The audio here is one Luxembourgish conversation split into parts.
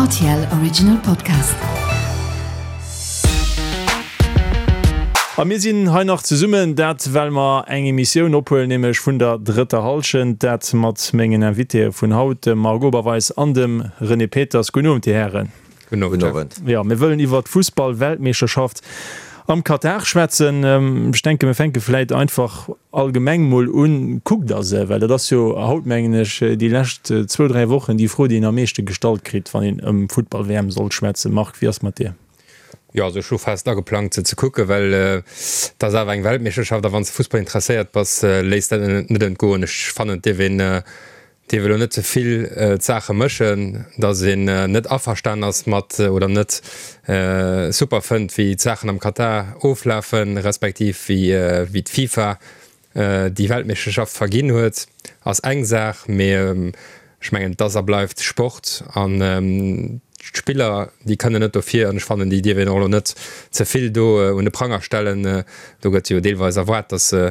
Rtl Original Podcast. A mir sinn hei nach zesummen, dat well mer eng Emissioun ophuelen, nämlech vun der drëtter Hallschent, dat mat mengen Invitéë vun haut, dem Marc Oberweis an dem René Peters. Gudden Owend, Dir Hären. Gudden Owend. Jo, mir wëllen iwwert d'Fussball-Weltmeeschterschaft am Katar schwätzen. Ech denken, mir fänke vläit einfach allgemeng mol un. Kuckt Der se? Well dat ass jo haut, mengen ech, déi lescht zwou, dräi Wochen déi Fro, déi een am meeschte gestallt kritt, wann een ëm Futtball-WM soll schwätzen. Marc, wéi ass mat dir? Jo, also ech hu fest ageplangt se ze kucken, well et ass awer eng Weltmeeschterschaft a wann s de Fussball interesséiert bass, léiss dat net entgoen. Ech fannen, et dierf een dierf elo net ze vill d'Saache mëschen, datt een net averstan ass mat oder net super fënnt, wéi d'Saachen am Katar oflafen, respektiv wéi d'FIFA déi Weltmeeschterschaft verginn huet, ass eng Saach. Mee ech mengen, et ass a bleift Sport an d'Spiller, déi kënnen net dofir. An ech fannen, déi dierf een och elo net ze vill do un de Pranger stellen. Do gëtt jo deelweis erwaart, datt se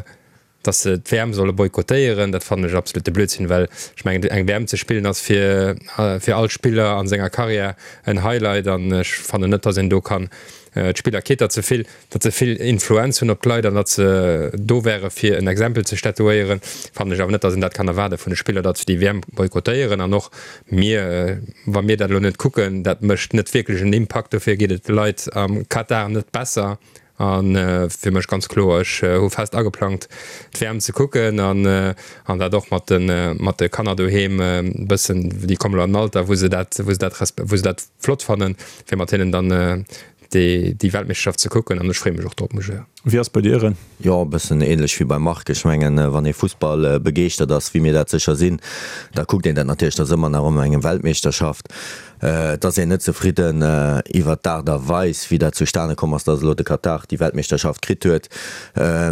dass se d'WM solle boykottéieren, dat fannen ech absolute Blödsinn, well ech mengen eng WM ze spillen ass fir fir all Spiller an senger Karriär en Highlight an ech fannen net, dass een do kann d'Spiller quitte ze vill, datt se vill Influenz hunn op d'Leit an datt se do wäre fir en Exempel ze statuéieren, fannen ech awer net, dass een dat kann erwaarde vun de Spiller, datt se déi WM boykottéieren an och mir, wa mir dat elo net kucken, dat mécht net wierklech en Impakt, dofir geet et de Leit am Katar net besser. A fir mech ganz kloer, ech hu fest ageplangt d'WM ze kucken an an dat och mat de mat de Kanner doheem e bëssen, déi kommen elo an en Alter wou se dat wou se dat wou se dat flott fannen, fir mat hinnen dann déi déi Weltmeeschterschaft ze kucken an ech freeë mech och drop, muss ech soen. Wéi ass bei dir, Ren? Jo, e bëssen ähnlech wéi beim Marc. Ech mengen, wann ee Fussball begeeschtert ass, wéi mir dat sécher sinn, da kuckt een dat natierlech. Dat ass ëmmer nach ëmmer eng Weltmeeschterschaft. Et ass een net zefridden iwwert d'Aart a Weis, wéi dat zustane komm ass, datt elo de Katar déi Weltmeeschterschaft kritt huet.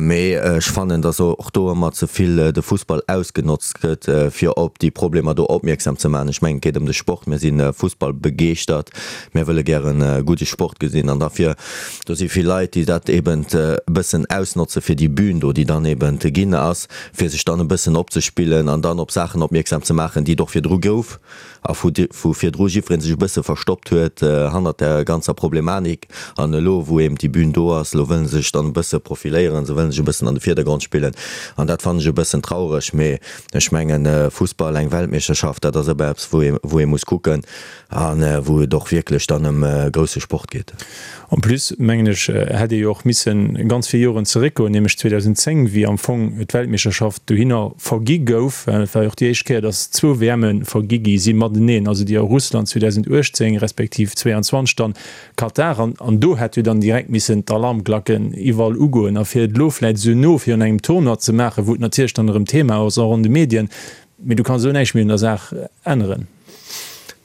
Mee ech fannen, datt och do ëmmer ze vill de Fussball ausgenotzt gëtt, fir op déi Problemer do opmierksam ze maachen. Ech mengen, et geet ëm de Sport. Mir si fussballbegeeschtert. Mir wëlle gären gudde Sport gesinn. An dafir, do si vill Leit, déi dat eben e bëssen ausnotze fir déi Bühn do, déi dann eben ginn ass, fir sech dann e bëssen opzespillen an dann op Saachen opmierksam ze maachen, déi et och virdru gouf. a vu virdru jiddweree sech e bësse verstoppt huet hannert där ganzer Problematik. An elo, wou eben déi Bühn do ass, elo wëlle se sech dann e bësse profiléieren, se wëlle sech e bëssen an de Virdergrond spillen. An dat fannen ech e bëssen traureg. Mee ech mengen, Fussball, eng Weltmeeschterschaft, dat ass ëmmer eppes, wou ee, wou ee muss kucken a wou et och wierklech dann ëm grousse Sport geet. En plus, mengen ech, hätt ee jo och missen ganz vill Joren zeréckgoen, nämlech 2010, wéi am Fong d'Weltmeeschterschaft dohinner vergi gouf. Et war jo och déi éischt Kéier, datt zwou WMe vergi gi si mateneen, also déi a Russland 2018 respektiv 22 dann Katar. An do hätt jo dann direkt missen d'Alarmglacken iwwerall ugoen. A fir et elo vläicht esou no virun engem Tournoi ze maachen, wou et natierlech dann erëm Thema ass, och an de Medien, mee du kanns elo näischt méi un der Saach änneren.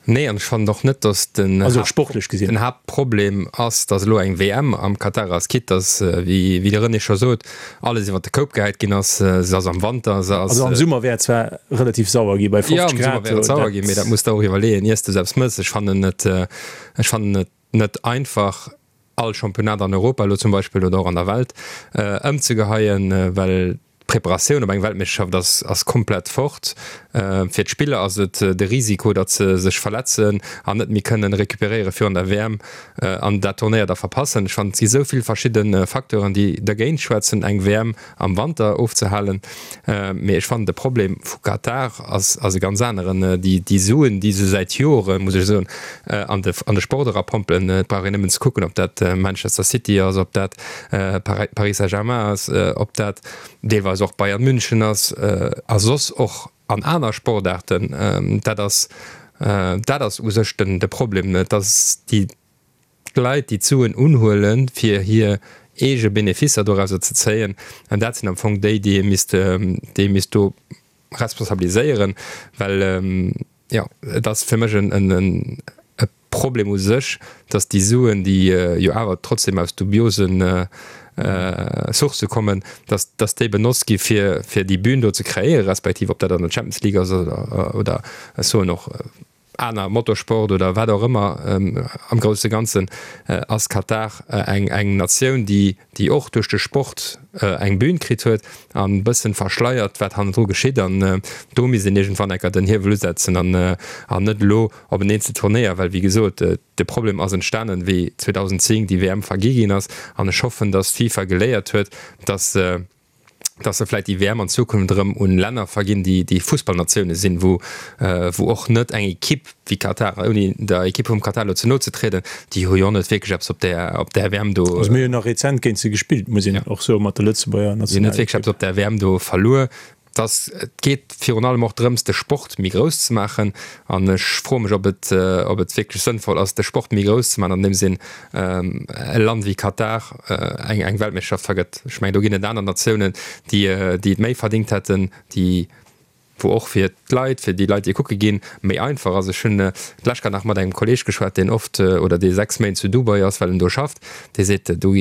Nee, an ech fannen och net, datt den Also sportlech gesinn. den Haaptproblem ass, datt elo eng WM am Katar ass, quitte datt, wéi wéi de René scho sot, alles iwwer de Koup gehäit ginn ass. Se ass am Wanter, se ass. Also am Summer wär et zwar relativ sauer gi bei 50 Jo, am Summer Grad, wär et sauer dat. ginn, mee dat muss de och iwwerleeën, iers de eppes mëss. Ech fannen et, ech fannen et net einfach, all Championnat an Europa elo zum Beispill oder och an der Welt ëmzegeheien, well d'Preparatioun op eng Weltmeeschterschaft ass ass komplett fort. Fir d'Spiller ass et de Risiko, datt se sech verletzen an net méi kënnen recuperéiere virun der WM an dat Turnéier da verpassen. Ech fannen, et gi sou vill verschidde Facteuren, déi dergéint schwätzen, eng WM am Wanter ofzehalen. Mee ech fannen de Problem vu Katar ass ass e ganz aneren. Déi déi Suen, déi se säit Joren, muss ech soen, an de an de Sport erapompelen, et brauch een nëmmen ze kucken, ob dat Manchester City ass, ob dat Paris Saint-Germain ass, ob dat deelweis och Bayern München ass a soss och an aner Sportaarten. Dat ass dat ass u sech den de Problem, dass déi D'Leit, déi d'Suen unhuelen, fir hir eege Beneficer dorauser ze zéien, an dat sinn am Fong déi, déi ee misst, déi ee misst do responsabiliséieren, well, jo, et ass fir mech en e Problem u sech, datt déi Suen, déi jo awer trotzdem aus dubiose Sourcë kommen, datt, datt déi benotzt gi fir, fir déi Bühn do ze kreéieren, respektiv ob dat an der Champions League ass oder, oder ech soen och. Aner Motorsport oder wat och ëmmer, am grousse Ganzen ass Katar eng eng Natioun, déi déi och duerch de Sport eng Bühn kritt huet an e bëssen verschleiert, wat hannendru geschitt. An do misst een iergendwann enker den Hiewel usetzen an an net elo op en eenzel Turnéier, well wéi gesot, de Problem ass entstanen, wéi 2010 déi WM vergi ginn ass. An ech hoffen, datt d'FIFA geléiert huet, datt dass se vläit déi WM an Zukunft erëm un Länner verginn, déi déi Fussballnatioune sinn, wou wou och net eng Ekipp wéi Katar, ouni der Ekipp vum Katar elo ze no ze trieden, déi hu jo och net wierklech eppes op där op där WM do. Also mir hunn nach rezent géint se gespillt, muss een och soen, mat der Lëtzebuerger Déi hunn net wierklech Nationalekipp. eppes op där WM do verluer. Dass et geet virun allem och drëms, de Sport méi grouss ze maachen. An ech froe mech, ob et, ob et wierklech sënnvoll ass, de Sport méi grouss ze maachen, andeems een e Land wéi Katar eng, eng Weltmeeschterschaft vergëtt. Ech mengen, do ginn et aner Natiounen, déi, déi et méi verdingt hätten, déi, wou och fir d'Leit, fir déi Leit, déi kucke ginn, méi einfach ass. Ech hunn d'lescht grad nach mat engem Kolleeg geschwat, deen oft oder dee 6 Méint zu Dubai ass, well en do schafft. Dee seet, do,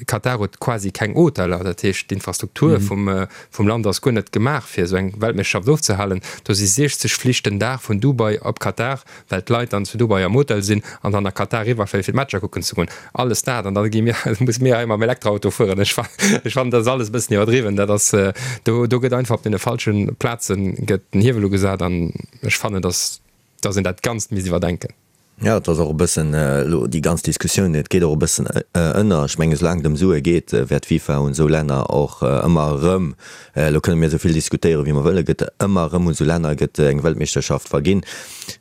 Katar huet quasi keng Hoteller. Dat heescht, d'Infrastruktur vum, vum Land ass guer net gemaach fir esou eng Weltmeeschterschaft ofzehalen. Do si 60 Flich den Dag vun Dubai op Katar, well d'Leit dann zu Dubai am Hotel sinn an dann a Katar riwwerfléien fir d'Matcher kucken ze goen. Alles dat an da gi mir, musse mir hei mam Elektroauto fueren. Ech ech fannen dat ass alles e bëssen iwwerdriwwen. Dat ass, do do gëtt einfach op deene falsche Plaze gëtt den Hiewel ugesat an ech fannen, datt datt een dat Ganzt misst iwwerdenken. Jo, et ass och e bëssen elo déi ganz Diskussioun, et geet och e bëssen ënner. Ech mengen, soulaang et ëm Sue geet, wäert d'FIFA un esou Länner och ëmmer erëm, elo kënne mir esou vill diskutéieren, wéi mer wëllen, gëtt ëmmer erëm un esou Länner gëtt eng Weltmeeschterschaft verginn.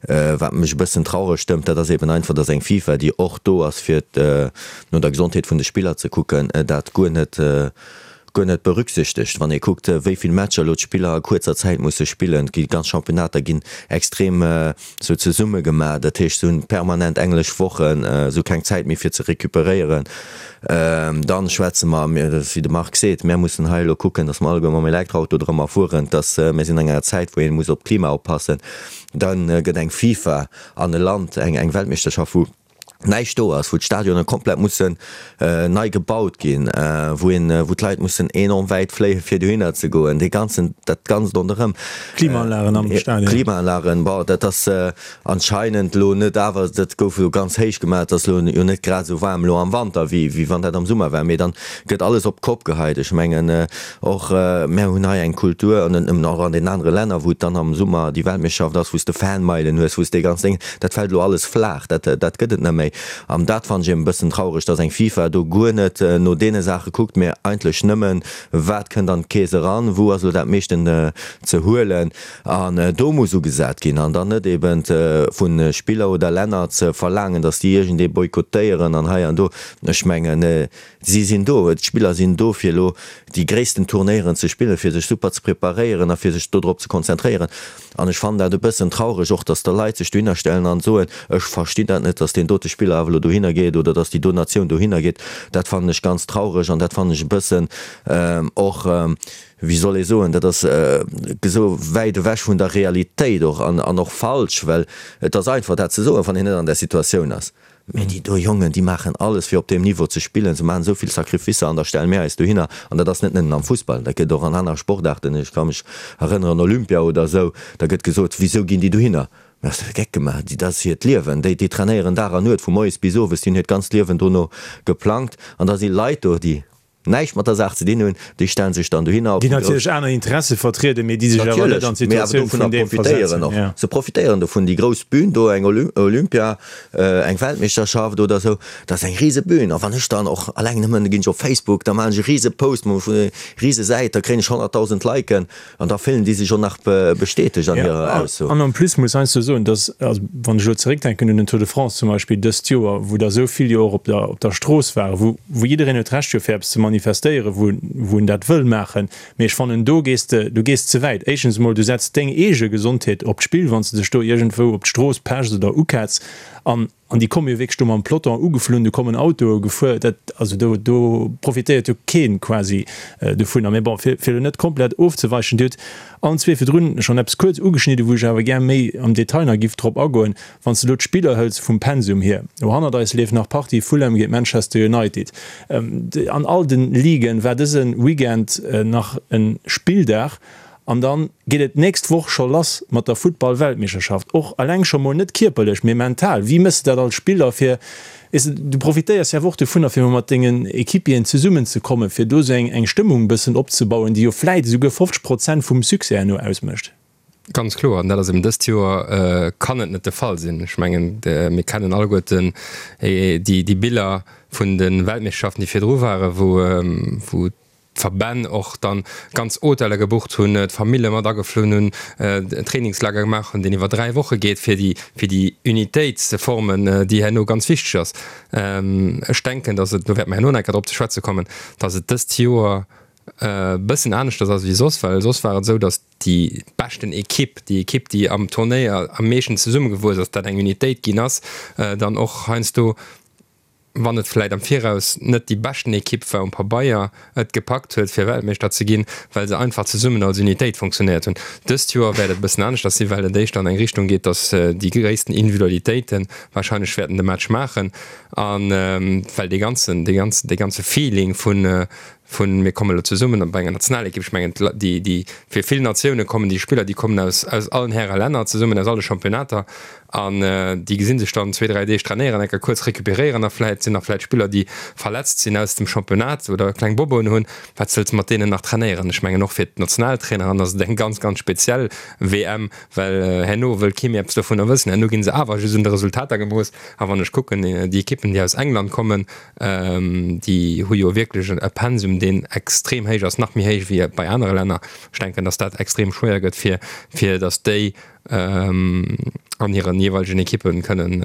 Wat mech e bëssen traureg stëmmt, dat ass eben einfach, datt eng FIFA, déi och do ass, fir no der Gesondheet vun de Spiller ze kucken, dat guer net, guer net berücksichtegt, wann ee kuckt, wéi vill Matcher elo d'Spiller a kuerzer Zäit musse spillen. Et gi ganz Championnater ginn extrem sou zesumme gemaach, dat heescht se hunn permanent englesch Wochen, se hu keng Zäit méi fir ze recuperéieren. Dann schwätze mer, wéi de Marc seet, mär mussen hei elo kucken, datt mer alleguer mam Elektroauto drëmmer fueren, datt mir sinn an enger Zäit, wou ee muss op d'Klima oppassen. Da gëtt eng FIFA an e Land eng Weltmeeschterschaft, wou näischt do ass, wou d'Stadionen komplett mussen nei gebaut ginn, wou een, wou d'Leit mussen enorm wäit fléien, fir dohinner ze goen, dee ganzen, dat Ganzt ronderëm. Klimaanlagen am Stadion. Klimaanlagen, bon, dat ass anscheinend elo net, awer dat gouf elo ganz héich gemaach, et ass elo jo net grad esou waarm elo am Wanter, wéi, wéi wann dat am Summer war, mee dann gëtt alles op d'Kopp geheit. Ech mengen och, mär hunn hei eng Kultur, an net nëmmen, och an den anere Länner, wou et dann am Summer déi Weltmeeschterschaft ass, wou s de Fanmeilen hues, wou s dee ganz Déng, Dat fält elo alles flaach, dat, dat gëtt et net méi. An dat fannen ech eben e bëssen traureg, dass eng FIFA do guer net no deene Saache kuckt, mä eigentlech nëmmen, wat kënnt an d'Keess eran, wou ass elo dat meeschten ze huelen. An do muss ugesat ginn an dann net eben vu Spiller oder Länner ze verlaangen, dass déi iergendee boykottéieren an hei an do. Ech mengen, si sinn do, d'Spiller sinn do, fir elo déi gréissten Turnéieren ze spillen, fir sech super ze preparéieren a fir sech dodrop ze konzentréieren. An ech fannen dat e bëssen traureg och, dass da Leit sech dohinner stellen an soen, ech verstinn dat net, dass deen dote Spiller awer elo dohinner geet oder dass déi do Natioun dohinner geet. Dat fannen ech ganz traureg an dat fannen ech e bëssen och, wéi soll ee soen, dat ass esou wäit ewech vun der Realitéit och an och falsch, well et ass einfach dat ze soen, wann een net an där Situatioun ass. Mee déi do Jongen, déi maachen alles fir op deem Niveau ze spillen. Se maachen esou vill Sacrificer an da stelle mir eis dohinner. An dat ass net nëmmen am Fussball, dat gëtt och an aner Sportaarten. Ech ka mech erënneren, Olympia oder esou, da gëtt gesot, Wisou ginn déi dohinner? Mä ass de Geck gemaach? Déi, dat ass hiert Liewen. Déi, déi trainéieren Dag an Nuet, vu moies bis owes. Déi hunn hiert ganzt Liewen dono geplangt. An da si Leit do, déi näischt mat der Saach ze dinn hunn, déi stellen sech dann dohinner op déi natierlech aner Interesse vertrieden, mee déi sech awer net an d'Situatioun vun deem versetzen. Och. Se profitéieren dovun, déi grouss Bühn do, eng Olympia, eng Weltmeeschterschaft oder esou, dat ass eng rise Bühn. A wann ech dann och alleng nëmmen, da ginn ech op Facebook, da maachen ech e rise Post, rise Säit, da kréien ech 100.000 Liken. An da fillen déi sech och nach bestätegt an hirer Ausso. An en plus muss heiansdo soen, dass, also wann ech elo zeréckdenken un den Tour de France zum Beispill dëst Joer, wou der esou vill jo och op der, op der Strooss waren, wou, wou jiddereen huet d'Recht jo fir eppes ze manifestéieren, wou, wou en dat wëll maachen, mee ech fannen do gees de, du gees ze wäit. Éischtens emol, du setz deng eege Gesondheet op d'Spill, wann s de dech do iergendwou op d'Strooss pechs oder uketz. An An déi komme jo wierklech do mam Peloton ugeflunn, do kommen Autoe gefuer, dat, also do, do profitéiert jo keen quasi dovunner. Mee bon, fir, fir elo net komplett ofzeweichen, Dir hutt allen zwee virdrun schonn eppes kuerz ugeschnidden, wou ech awer gär méi am Detail nach giff drop agoen. Wann s de elo d'Spiller hëls vum Pensum hier, elo hannert eis leeft nach d'Partie Fulham géint Manchester United. An all de Liguen war dëse Weekend nach e Spilldag. An dann geet et d'nächst Woch scho lass mat der Futtball-Weltmeeschterschaft. Och eleng scho mol net kierperlech, mee mental. Wéi méchs de dat als Spiller fir, weess de, du profitéiers jo awer och dovunner fir mol mat dengen Equipieren zesummen ze kommen, fir do esou eng eng Stëmmung bëssen opzebauen, déi jo vläit esouguer 50 Prozent vum Succès herno ausmécht. Ganz kloer, an dat ass eben dëst Joer kann et net de Fall sinn. Ech mengen, mir kennen alleguerten déi Biller vun de Weltmeeschterschaften, déi virdru waren, wou d'Verbänn och dann ganz Hoteller gebucht hunn, d'Famille mat ageflunn hunn, en Trainingslager gemaach hunn, deen iwwer 3 Woche geet, fir déi, fir déi Unitéit ze formen, déi herno ganz wichteg ass. Ech denken, datt et, do wäerte mer herno nach eng Kéier drop ze schwätze kommen, datt et dëst Joer e bëssen aneschters ass wéi soss, well soss war et esou, datt déi beschten Ekipp, déi Ekipp, déi am Turnéier am meeschten zesummegewuess ass, dat eng Unitéit ginn ass, dann och heiansdo wann et vläit am Viraus net déi beschten Ekipp war um Pabeier, et gepackt huet fir Weltmeeschter ze ginn, well se einfach zesummen als Unitéit funktionéiert hunn. Dëst Joer wäert et e bëssen aneschters sinn, well et éischter an eng Richtung geet, datt déi gréissten Individualitéite warscheinlech wäerten de Match maachen a well dee ganzen, dee ganzen, dee ganze Feeling vun, vun mir kommen elo zesummen bei enger Nationalekipp, ech mengen déi, déi fir vill Natioune kommen déi Spiller, déi kommen aus, aus allen Häre Länner zesummen, aus alle Championnater An déi gesi sech dann zwee, dräi Deeg trainéieren, enker kuerz recuperéieren a vläit sinn nach vläit Spiller, déi verletzt sinn aus dem Championnat oder kleng Boboen hunn. Wat wëlls de mat deenen nach trainéieren? Ech mengen och fir d'Nationaltraineren ass et eng ganz, ganz speziell WM, well herno wëll kee méi eppes dovunner wëssen. Herno gi se awer just un de Resultater gemooss. A wann ech kucken, déi Ekippen, déi aus England kommen, déi hu jo wierklech e Pensum, deen extrem héich ass, nach méi héich wéi bei anere Länner. Ech denken, datt dat extrem schwéier gëtt, fir, fir datt déi an hiren jeeweilegen Ekippen kënnen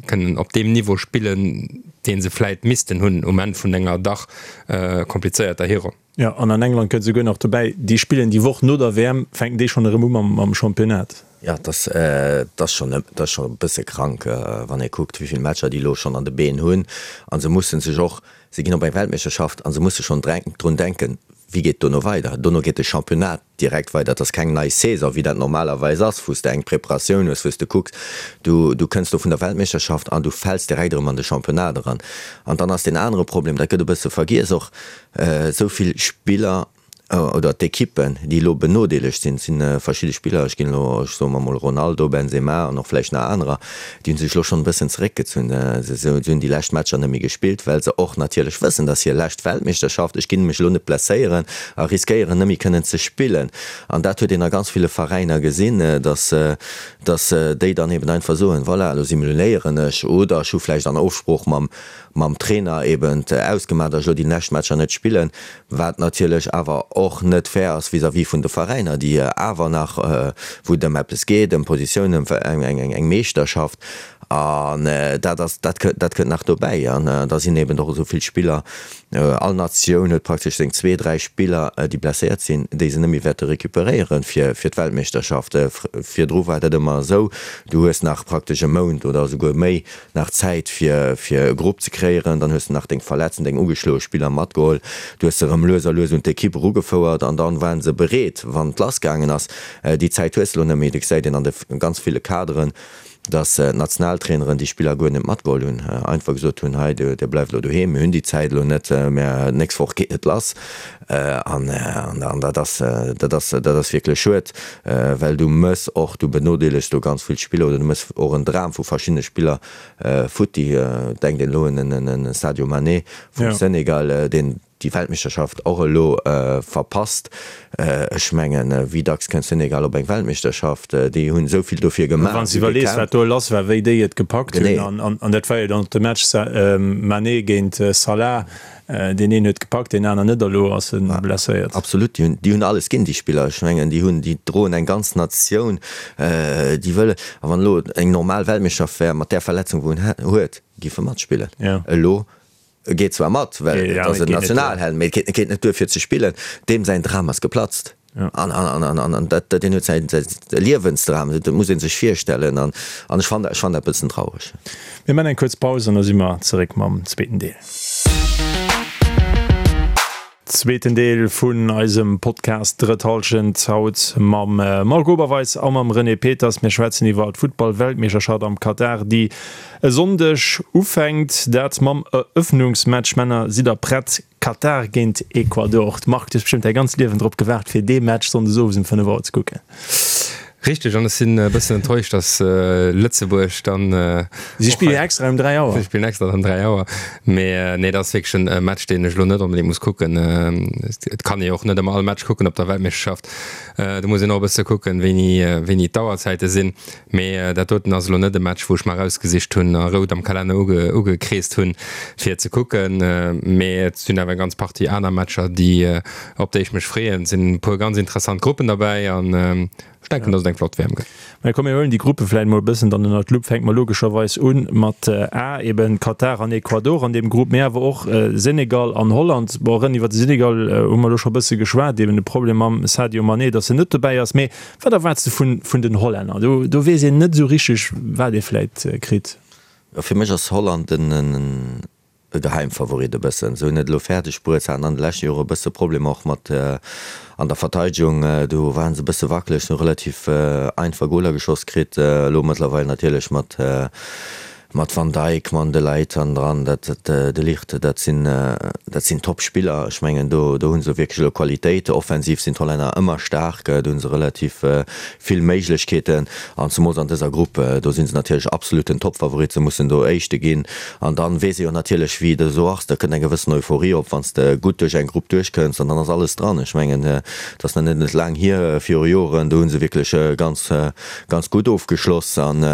kënnen op deem Niveau spillen, dee se vläit missten hunn um Enn vun enger dach komplizéierter Hironn. Jo, an an England kënnt souguer nach dobäi, déi spillen déi Woch no der WM, fänken déi schonn erëm u mam Championnat. Jo, et ass, et ass schonn, et ass schonn e bësse krank, wann ee kuckt, wéi vill Matcher déi elo schonn an de Been hunn. A se musse sech och, se ginn op eng Weltmeeschterschaft a se musse schonn drun denken, wéi geet et dono weider. Dono geet de Championnat direkt weider. Et ass keng nei Saison, wéi dat normalerweis ass, wou s de eng Preparatioun hues, wou s de kucks, du, du kënns do vun der Weltmeeschterschaft an du fäls direkt erëm an de Championnat eran. An dann ass deen anere Problem, dat gëtt e bësse vergiess och, esou vill Spiller oder d'Ekippen, déi elo benodeelegt sinn, et si verschidde Spiller, ech ginn elo, ech soe mer emol Ronaldo, Benzema an och vläicht nach anerer, Déi hunn sech elo schonn e bëssen zeréckgezunn. Se hunn déi lescht Matcher net méi gespillt, well se och natierlech wëssen, dass hir lescht Weltmeeschterschaft, ech ginn mech elo net blesséieren a riskéieren net méi kënnen ze spillen. An dat huet een a ganz ville Veräiner gesinn, dass dass déi dann eben einfach soen, voilà, elo simuléieren ech oder ech hu vläicht an Ofsprooch mam mam Trainer eben ausgemaach, dass ech elo déi lescht Matcher net spillen. Wat natierlech awer och net fair ass vis-à-vis vun de Veräiner, déi awer nach, wou et ëm eppes geet, ëm Positiounen, ëm eng Meeschterschaft. An dat ass, dat kënnt, dat kënnt nach dobäi. An da sinn eben och esou vill Spiller, all Natioun huet praktesch seng zwee, dräi Spiller, déi blesséiert sinn, déi se net méi wäerte recuperéieren fir d'Weltmeeschterschaft. Virdru war dat ëmmer esou, du hues nach praktesch e Mount oder esouguer méi nach Zäit fir fir e Grupp ze kreéieren, dann hues de nach deng verletzten, deng ugeschloe Spiller matgeholl, du hues se erëm lues a lues un d'Ekipp erugefouert an dann waren se bereet wann et lass gaangen ass. Déi Zäit hues de elo net méi. Du gesäit een an de ganz ville Kaderen, dass d'Nationaltraineren déi Spiller guer net matgeholl hunn, einfach gesot hunn, hei dir bleift elo doheem, mir hunn déi Zäit elo net, mä d'nächst Woch geet et lass. An dat ass, dat ass, dat ass wierklech schued, well du mëss och, du benodeelegs do ganz vill Spiller oder du mëss och en Dram vu verschiddene Spiller futti. Denkt een elo un en Sadio Mané vum Senegal, deen déi Weltmeeschterschaft och elo verpasst. Ech mengen, wéi dacks kënnt Senegal op eng Weltmeeschterschaft? Déi hunn esou vill dofir gemaach, Wann s de iwwerlees, wat do lass war, wéi déi et gepackt hunn, an dat war jo dann och de Match Mané géint Salah, Deen een huet gepackt, deen aner net a lo ass e blesséiert. Absolut, déi hunn, déi hunn alles ginn, déi Spiller. Ech mengen, déi hunn, déi droen eng ganz Natioun, déi wëllen, a wann elo eng normal Weltmeeschterschaft wär, mat där Verletzung wou en huet, géif e matspillen. Elo, e geet zwar mat, well et ass en Nationalheld, mee et geet, geet net duer fir ze spillen. Deem säin Dram ass geplatzt. An, an, an, an, an dat, deen huet säin, säin Liewensdram, dat muss ee sech virstellen. An, an ech fannen, ech fannen dat e bëssen traureg. Mir man eng kuerz Paus an da si mer zeréck mam zweeten Deel. Zweeten Deel vun eisem Podcast Drëtt Hallschent, haut mam Marc Oberweis a mam René Peters. Mir schwätzen iwwer d'Futtball-Weltmeeschterschaft am Katar, déi e Sonndeg ufänkt. Dat mam Erëffnungsmatch. Männer, sidd der prett? Katar géint Ecuador. Marc, du hues bestëmmt däi ganzt Liewen drop gewaart, fir dee Match sonndes owes um 5 Auer ze kucken. Richteg, an ech sinn e bëssen enttäuscht, dass Lëtzebuerg dann. Si spillen jo extra um 3 Auer. Si spillen extra dann 3 Auer. Mee nee, dat ass wierklech e Match, deen ech elo net onbedéngt muss kucken. Et kann ee jo och net ëmmer all Match kucken op der Weltmeeschterschaft. Do muss een och e bësse kucken, wéini, wéini d'Auerzäite sinn. Mee dat doten ass elo net e Match, wou ech mer erausgesicht hunn a rout am Kalenner ugekreest hunn, fir ze kucken. Mee et sinn awer eng ganz Partie aner Matcher, déi, op déi ech mech freeën. Et sinn e puer ganz interessant Gruppen derbäi an ech denken, dass et eng flott WM gëtt. Mä komm, mir huelen déi Gruppe vläicht mol e bëssen dann ënnert d'Lupp. Fänke mer logescherweis u mat A, eben Katar an Ecuador an deem Grupp, mee awer och Senegal an Holland. Bon, René, iwwer de Senegal hu mer elo scho e bësse geschwat, eben de Problem mam Sadio Mané, dass en net dobäi ass. Mee wat erwaarts de vun, vun den Hollänner? Do, do weess een net esou richteg, wat ee vläicht kritt. Jo, fir mech ass Holland en e Geheimfavorit e bëssen. Se hunn et elo fäerdeg bruet, se haten an de leschte Jore e bësse Problemer och mat an der Verteidegung, do ware se e bësse wackeleg, se hu relativ einfach Goler geschoss kritt. Elo mëttlerweil natierlech mat mat Van Dijk, mam De Ligt hannendran, dat De Ligt, dat sinn dat sinn Top-Spiller. Ech mengen do do hu se wierklech elo Qualitéit. Offensiv sinn d'Hollänner ëmmer staark, do hu se relativ vill Méiglechkeeten an zemools an dëser Grupp, do si se natierlech absoluten Top-Favorit, se mussen do Éischte ginn. An dann weess ee jo natierlech wéi et esou ass, da kënnt eng gewëssen Euphorie op, wann s de gutt duerch eng Grupp duerchkënns an dann ass alles dran. Ech mengen, et ass nach net net laang hier, viru Joren, do hu se wierklech ganz, ganz gutt ofgeschloss. An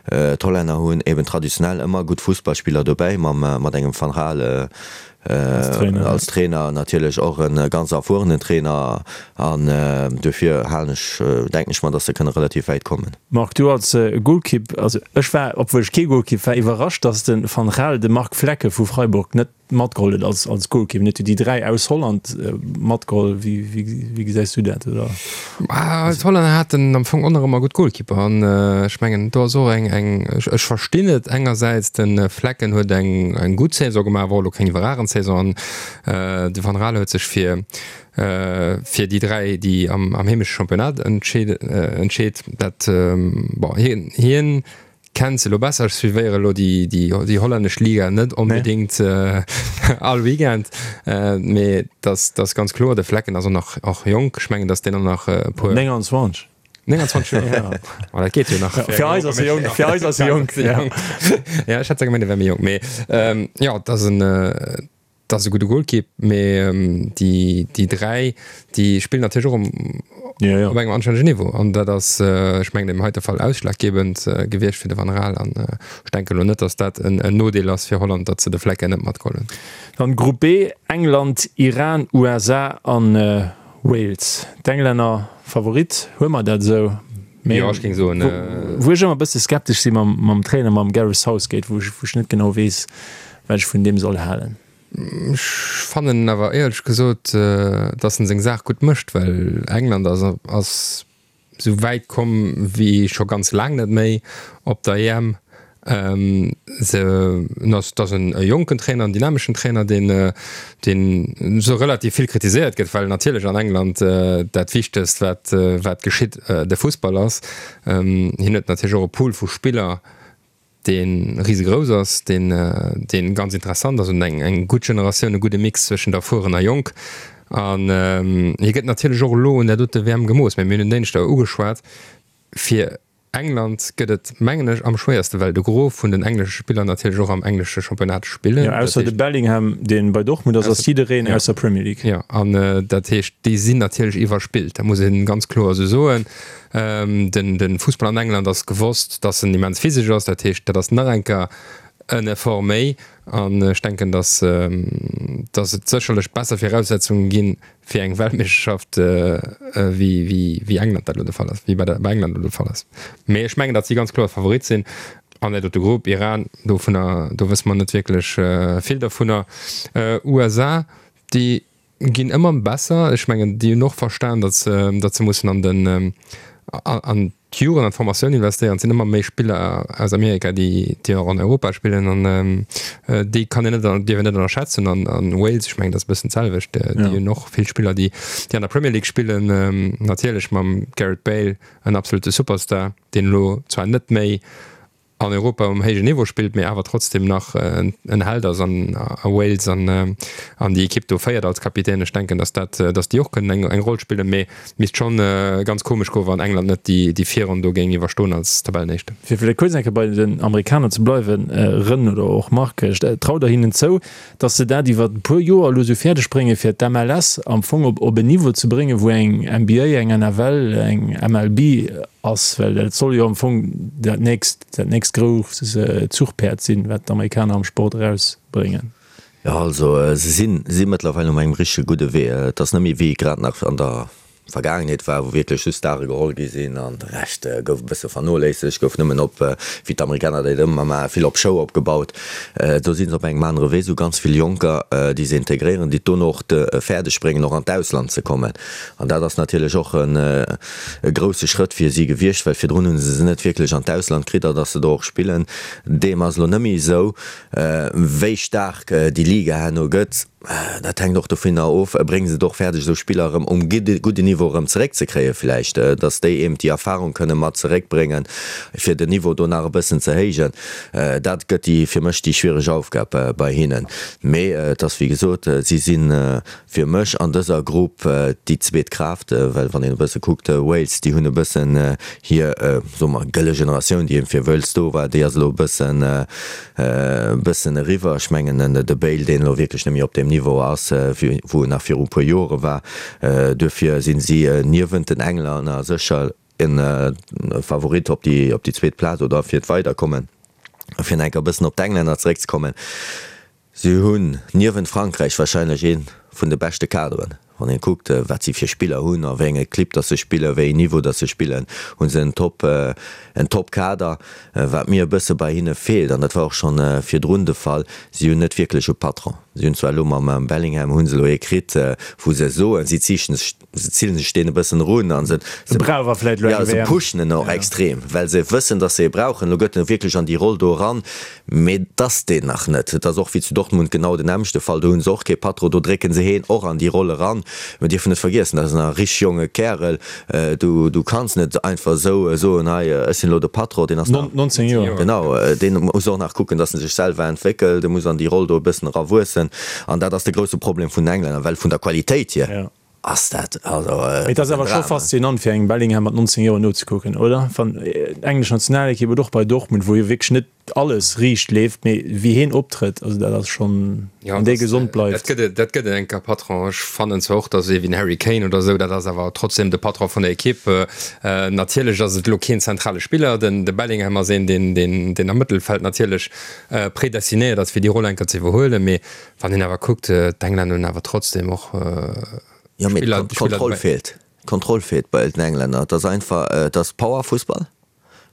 d'Hollänner hunn eben traditionell ëmmer gutt Fussballspiller dobäi, mam, mat engem Van Gaal als Trainer, natierlech och e ganz erfuerenen Trainer. An duerfir halen ech, denken ech mer, datt se kënne relativ wäit kommen. Marc, du als Golkipp, also ech war, obwuel ech kee Golkipp war, iwwerrascht, datt de Van Gaal de Marc Flekken vu Freiburg net matgeholl huet als als Golkipp. En huet jo déi 3 aus Holland matgeholl. Wéi wéi gesäis du dat, oder? D'Hollänner haten am Fong och nach ëmmer gutt Golkipper an ech mengen do ass och eng eng, ech verstinn et engersäits, de Flekken huet eng eng gutt Saison gemaach, war och elo keng iwwerragend Saison an de Van Gaal huet sech fir fir déi 3, déi am heemesche Championnat entscheet. Dat, bon, hien, hien kennt se elo besser. Ech suivéiere elo déi, déi, déi hollännesch Liga net onbedéngt all Weekend, mee dass, dass ganz kloer, de Flekken ass och nach och jonk. Ech mengen, dass deen och nach e puer. 29. 29 Joer? Oh, dat geet jo nach. Fir eis ass e jonk, fir eis ass e jonk. Ja, ech hätt zwar gemengt, e wär méi jonk, mee jo, et ass en. Dat ass e gudde Golkipp, mee déi déi 3, déi spillen natierlech och um ja, ja. op engem anstännegen Niveau. An dat ass, ech mengen, am heite Fall ausschlaggebend gewiescht fir de Van Gaal. An ech denken elo net, datt dat en Nodeel ass fir Holland, datt se de Flecken net matgeholl hunn. Dann Grupp B, England, Iran, USA an Wales. D'Englänner Favorit, huele mer dat esou? Mee jo, ech géing soen, wou ech ëmmer e bësse skeptesch si mam, mam Trainer, mam Gareth Southgate, wou ech, wou ech net genau weess, wat ech vun deem soll halen. Ech fannen awer éierlech gesot, datt en seng Saach gutt mécht, well England ass, ass esou wäit komm wéi scho ganz laang net méi op der EM. Se ass et ass en jonken Trainer, en dynameschen Trainer, deen deen esou relativ vill kritiséiert gëtt, well natierlech an England dat Wichtegst wat wat geschitt de Fussball ass. Hien huet natierlech och e Pool vu Spiller, dee risegrouss ass, deen deen ganz interessant ass und eng eng gutt Generatioun, e gudde Mix zwëschent erfueren a jonk. An hie gëtt natierlech och elo un där dote WM gemooss, mä mir hunn en Dénschdeg ugeschwat, fir England gëtt et, mengen ech, am schwéierste, well de Gros vun den englesche Spiller natierlech och am englesche Championnat spillen. Jo, ausser de Bellingham, dee bei Dortmund ass, ass jiddereen aus der Premier League. Jo, an dat heescht, déi sinn natierlech iwwerspillt, dat muss ee ganz kloer esou soen. De Fussball an England ass gewosst, datt en immens physesch ass, dat heescht, dat ass nach eng Kéier en Effort méi. An ech denken, datt et sécherlech besser Viraussetzunge ginn, fir eng Weltmeeschterschaft wéi wéi England dat elo de Fall ass, wéi bei der bei England elo de Fall ass. Mee ech mengen, datt si ganz kloer Favorit sinn an dat dote Grupp. Iran, dovunner, do wësse mer net wierklech vill dervunner. USA, déi ginn ëmmer besser. Ech mengen, déi hunn och verstan, datt se, datt se mussen an den an d'Jugend an d'Formatioun investéieren. Et sinn ëmmer méi Spiller aus Amerika, déi déi och an Europa spillen an déi kann een net, dierf een net ënnerschätzen. An an Wales, ech mengen, dat ass e bëssen d'selwecht, déi hunn och vill Spiller, déi déi an der Premier League spillen. Natierlech mam Gareth Bale en absolute Superstar, deen elo zwar net méi. an Europa um héijen Niveau spillt, mee awer trotzdem nach en Held ass an a Wales an an déi Ekipp do féiert als Kapitän. Ech denken, datt dat, datt déi och kënnen eng eng Roll spillen, mee misst schonn ganz komesch goen, wann England net déi déi Virronn do géing iwwerstoen als Tabellenéischten. Fir vläicht kuerz eng Kéier bei den Amerikaner ze bleiwen, Rën oder och Marc, traut Der hinnen zou, datt se dat iwwer e puer Joer elo esou fäerdeg bréngen, fir d'MLS am Fong op op en Niveau ze bréngen, wou eng NBA, eng NFL, eng MLB ass, well dat soll jo am Fong dat nächst, dat nächst grousst Zuchpäerd sinn, wat d'Amerikaner am Sport erausbréngen. Jo, also se sinn, si mëttlerweil um engem richtege gudde Wee. Et ass net méi wéi grad nach an der Vergaangenheet war, wou wierklech just Stare geholl gi sinn an de Rescht gouf e bësse vernoléissegt, gouf nëmmen op, wéi d'Amerikaner dat ëmmer maachen, vill op Show opgebaut. Do si se op engem anere Wee, sou ganz vill Jonker, déi se integréieren, déi et dono och fäerdeg bréngen, och an d'Ausland ze kommen. An dat ass natierlech och e grousse Schrëtt fir si gewiescht, well virdrun hu se se net wierklech an d'Ausland kritt, a datt se do och spillen. Deem ass elo net méi esou. Wéi staark déi Liga herno gëtt, Dat hänkt och dovunner of, brénge se et och fäerdeg esou Spiller erëm um gudden Niveau erëm zeréckzekréien vläicht, datt déi eben déi Erfahrung kënne mat zeréckbréngen, fir den Niveau do nach e bëssen ze héijen. Dat gëtt déi fir mech déi schwiereg Aufgab bei hinnen. Mee et ass wéi gesot, si si fir mech an dëser Grupp déi zweet Kraaft, well wann een e bësse kuckt, Wales, déi hunn e bëssen hir, soe mer, gëlle Generatioun, déi eben fir Wales do war, déi ass elo e bëssen, E bëssen eriwwer. Ech mengen de Bale, deen elo wierklech net méi op deem Niveau ass, wou en nach viru e puer Jore war. Duerfir sinn si niewent den Englänner sécher e Favorit op déi op déi zweet Plaz oder fir d'Weiderkommen. Fir nach eng Kéier e bëssen op d'Englänner zeréckzekommen, Si hunn niewent Frankräich warscheinlech ee vun de beschte Kaderen. Wann een kuckt, wat si fir Spiller hunn, a wéi enge Clibb dass se spillen, wéi een Niveau dass se spillen, hu se en Top, en Top-Kader. Wat mir e bësse bei hinne feelt, an dat war och schonn virdrun de Fall, si hunn net wierklech e Patron. Si hunn zwar elo mam Bellingham hu se elo ee kritt, wou se soen, si ziichten sech, se zillen sech deen e bëssen erun a se, Se brauch awer vläicht elo eng WM. Se pushen en och extrem, well se wëssen, dass se e brauchen. Elo gëtt en wierklech an déi Roll do eran. Mee et ass deen nach net. Et ass och wéi zu Dortmund genau den nämmlechte Fall. Do hu se och kee Patron, do drécke se heen och an déi Roll eran. Mir dierfen net vergiessen, dat ass nach e richteg jonge Kärel. Du, du kanns net einfach esou soen, hei, ech sinn elo de Patron. Deen ass nach. 19 Joer. Genau, deen muss och nach kucken, datt en sech selwer entwéckelt. E muss an déi Roll do e bëssen erawuessen. An dat ass de grousse Problem vun den Englänner, well vun der Qualitéit hier ass dat also Mee et ass awer scho faszinant, fir engem Bellingham mat 19 Joer nozekucken, oder? Wann d'englesch Nationalekipp oder och bei Dortmund, wou jo wierklech net alles riicht leeft, mee wéi heen optrëtt, also dat ass schonn, wann dee gesond bleift. Dat gëtt, dat gëtt en enker Patron. Ech fannen zwar och, datt ee wéi den Harry Kane oder esou, dat ass awer trotzdem de Patron vun der Ekipp. Natierlech ass et elo keen zentrale Spiller, den de Bellingham ass een, deen, deen, deen am Mëttelfeld natierlech predestinéiert ass, fir déi Roll enker ze iwwerhuelen, mee Wann een awer kuckt, d'Englänner hunn awer trotzdem och Jo, mee Spiller, Spiller d'Kontroll feelt. D'Kontroll feelt bei den Englänner. Et ass einfach, et ass Powerfussball.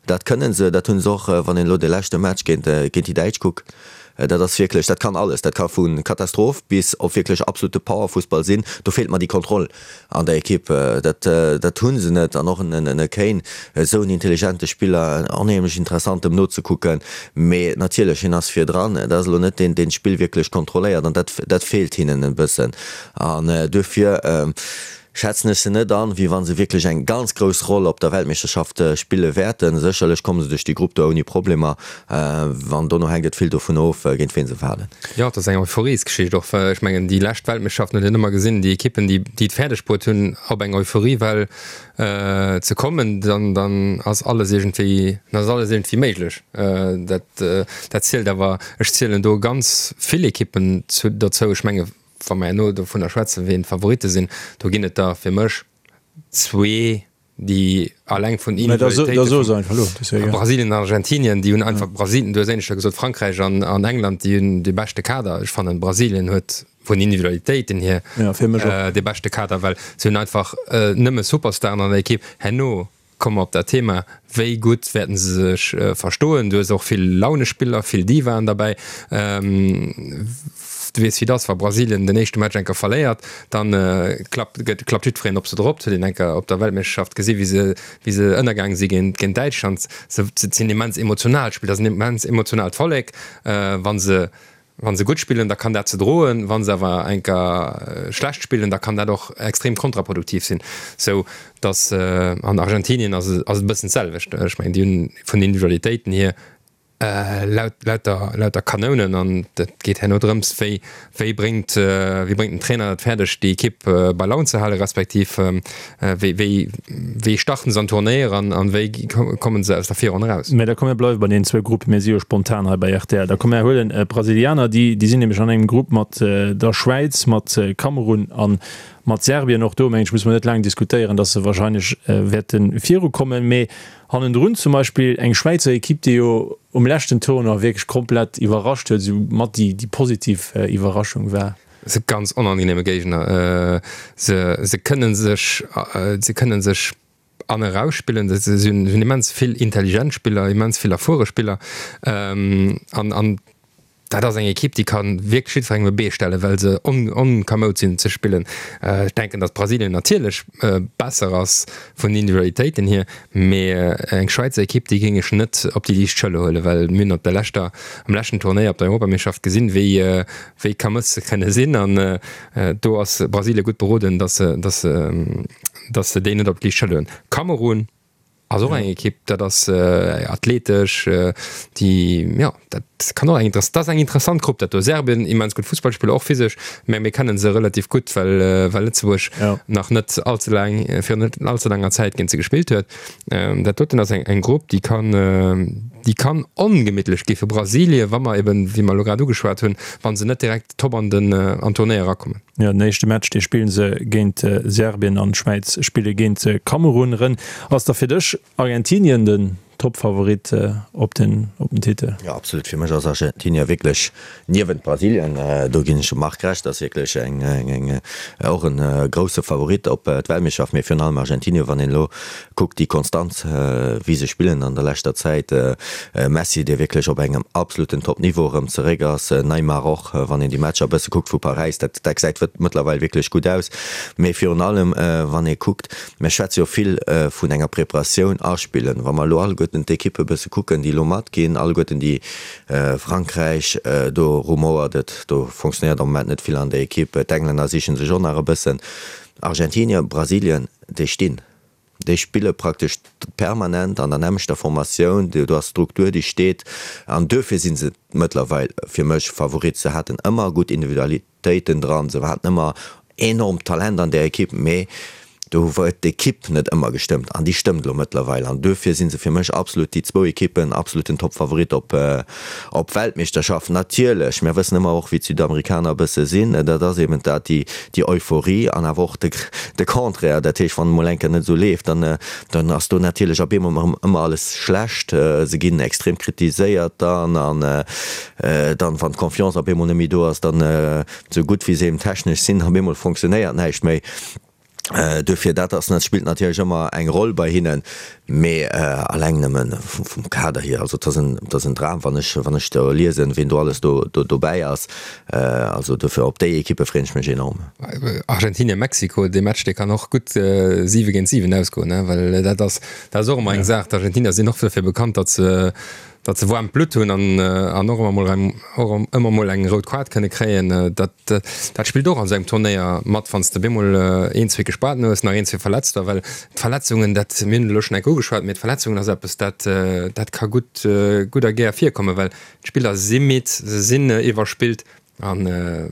Dat kënne se, dat hu se och, wann een elo de leschte Match géint, géint déi Däitsch kuckt. Dat ass wierklech, dat kann alles. Dat ka vu Katastroph bis op wierklech absolute Powerfussball sinn. Do feelt mer déi Kontroll. An der Ekipp, dat dat hu se net. An och en e Kane, esou en intelligente Spiller, onheemlech interessant em nozekucken, mee natierlech, hien ass virdran, dat ass elo net deen, deen d'Spill wierklech kontrolléiert an dat dat feelt hinnen e bëssen. An duerfir schätzen ech se net an, wéi wa se wierklech eng ganz grouss Roll op der Weltmeeschterschaft spille wäerten. Sécherlech komme se duerch déi Grupp do ouni Problemer, an dono hänkt et vill dovun of, géint ween se falen. Jo, et ass eng Euphoriesgeschicht och, well ech mengen, déi lescht Weltmeeschterschaften huet een ëmmer gesinn, déi Ekippen, déi déi et fäerdeg bruet hunn, op eng Euphoriewell ze kommen, dann dann ass alles iergendwéi, dann ass alles iergendwéi méiglech. Dat dat zielt awer, ech zielen do ganz vill Ekippen zu dozou. Ech menge wa mer herno dovunner schwätzen, wien d'Favoritte sinn, do ginn et der fir mech zwee, déi alleng vun Individualitéite vu Brasilien an Argentinien, déi hunn einfach Brasilien, du hues éineschter gesot Frankräich an an England, déi hunn dee beschte Kader. Ech fannen Brasilien huet vun Individualitéiten hier dee beschte Kader, well se hunn einfach nëmme Superstaren an der Ekipp. Herno komme mer op dat Thema, wéi gutt wäerten se sech verstoen. Du hues och vill Launespiller, vill Divaen derbäi. Du weess wéi et ass, wa Brasilien den éischte Match enker verléiert, dann klappt gëtt klappt jiddwereen op se drop. Dat huet een enker op der Weltmeeschterschaft gesi wéi se wéi se ënnergaange si géint géint Däitschland. Se sinn immens emotional Spiller, dat ass en immens emotionaalt Vollek. Wa se wa se gutt spillen, da kann dat se droen, wa se awer enker schlecht spillen, da kann dat och extrem kontraproduktiv sinn. Sou datt an Argentinien ass et ass et e bëssen d'selwecht. Ech mengen déi hunn vun den Individualitéiten hier. Laut, lauter, lauter Kanounen an et geet herno drëms, wéi, wéi bréngt, wéi bréngt den Trainer et fäerdeg, déi Ekipp bei Laun ze halen, respektiv wéi, wéi, wéi starten se an d'Tournéier an, an wéi kommen se aus der Virronn eraus. Mä da komm mir bleiwe bei deenen zwou Gruppen, mir si jo spontan hei bei rtl. Da komm mir huelen d'Brasilianer, déi, déi sinn nämlech an engem Grupp mat der Schwäiz, mat Kamerun a mat Serbien. Och do, mengen ech, musse mer net laang diskutéieren, datt se wahrscheinlech wäerte virukommen. Mee Hannendrun zum Beispill eng Schwäizer Ekipp, déi jo um leschten Tournoi wierklech komplett iwwerrascht huet, esou mat déi déi positiv Iwwerraschung war. Se ganz onangenehme Géigner. Se se kënne sech se kënne sech an erausspillen. Se hunn hunn immens vill intelligent Spiller, immens vill erfuere Spiller an an Dat ass eng Ekipp, déi ka wierklech jiddwerengem e Bee stellen, well se onkamoud sinn ze spillen. Ech denken, datt Brasilien natierlech besser ass vun den Individualitéiten hier, mee eng Schwäizer Ekipp, déi géing ech net op déi liicht Schëller huelen, well mir hunn op der leschter, am leschten Turnéier op der Europameeschterschaft gesinn, wéi, wéi kamëss se kënne sinn. An do ass Brasilien gutt beroden, datt se, datt se, datt se déi net op d'liicht Schëller huelen. Kamerun Ass och eng Ekipp, dat ass athletesch, déi, jo, dat kann och eng interess-, dat ass eng interessant Grupp dat do. Serbien, immens gutt Fussballspiller, och physesch, mä mir kennen se relativ gutt, well, well Lëtzebuerg nach net all ze laang, virun net all ze laanger Zäit géint se gespillt huet. Dat doten ass eng, eng Grupp, déi kann, déi kann ongemittlech gi fir Brasilien, wa mer eben, wéi mer elo grad ugeschwat hunn, wa se net direkt top an den, an d'Tournéier erakommen. Jo, den éischte Match, dee spillen se géint Serbien an d'Schwäiz spille géint Kamerun. Ren, ass da fir dech Argentinien den Topfavorit op den op den Titel? Jo, absolut. Fir mech ass Argentinien wierklech niewent Brasilien, do ginn ech dem Marc Recht, ass wierklech eng eng och en grousse Favorit op d'Weltmeeschterschaft, mee virun allem Argentinien, wann een elo Kuckt déi Konstanz wéi se spillen an der leschter Zäit. Messi dee wierklech op engem absoluten Top Niveau erëm zeréck ass, Neymar och, wann een déi Matcher e bësse kuckt vu Paräis, dat dat gesäit mëttlerweil wierklech gutt aus. Mee virun allem wann ee kuckt, mir schwätze jo vill vun enger Preparatioun aspillen, wa mer elo alleguerten d'Ekippe bësse kucken déi elo matginn, alleguerten déi Frankräich, do rumouert et, do fonctionnéiert am Moment net vill an der Ekipp, d'Englänner siche sech och nach e bëssen, Argentinien, Brasilien, déi stinn. Déi spille praktesch permanent an der nämmlechter Formatioun, do ass Struktur, déi steet an duerfir si se mëttlerweil fir mech Favorit. Se haten ëmmer gutt Individualitéiten dran, se haten ëmmer enormt Talent an där Ekipp, mee do huet d'Ekipp net ëmmer gestëmmt an déi stëmmt elo mëttlerweil an duerfir si se fir mech absolut déi zwou Ekippen absoluten Toppfavorit op op Weltmeeschterschaft. Natierlech, mir wëssen ëmmer och wéi d'Südamerikaner e bësse sinn, dat ass eben dat, déi déi Euphorie an awer och de de Contraire, dat heescht, wann et mol eng Kéier net esou leeft, dann dann ass do natierlech op eemol erëm ëmmer alles schlecht, se ginn extrem kritiséiert dann an dann, wann d'Confiance op eemol net méi do ass, dann esou gutt wéi se eben technesch sinn, op eemol fonctionnéiert näischt méi. Duerfir, dat ass, dat spillt natierlech ëmmer eng Roll bei hinnen, mee alleng nëmme vum Kader hier, also et ass en, et ass en Dram, wann ech, wann ech do liesen, wien do alles do, do dobäi ass. Also duerfir, op déi Ekippe freeën ech mech enorm. Argentinien, Mexiko, dee Match, dee kann och gutt 7 géint 7 ausgoen, well dat ass, dat ass och ëmmer eng Saach. D'Argentinier sinn och dofir bekannt, datt se, datt se waarmt Blutt hunn an, an och ëmmer mol eng, och ëmmer mol eng rout Kaart kënne kréien. Dat, dat spillt och an esou engem Turnéier mat, wann s de bemol een, zwee Gespaarten hues, nach een, zwee Verletzter, well d'Verletzungen, dat, mir hunn et elo schonn eng Kéier ugeschwat, mee d'Verletzungen ass eppes, dat, dat ka gutt, gutt a gär virkommen, well d'Spiller si midd, se sinn iwwerspillt an,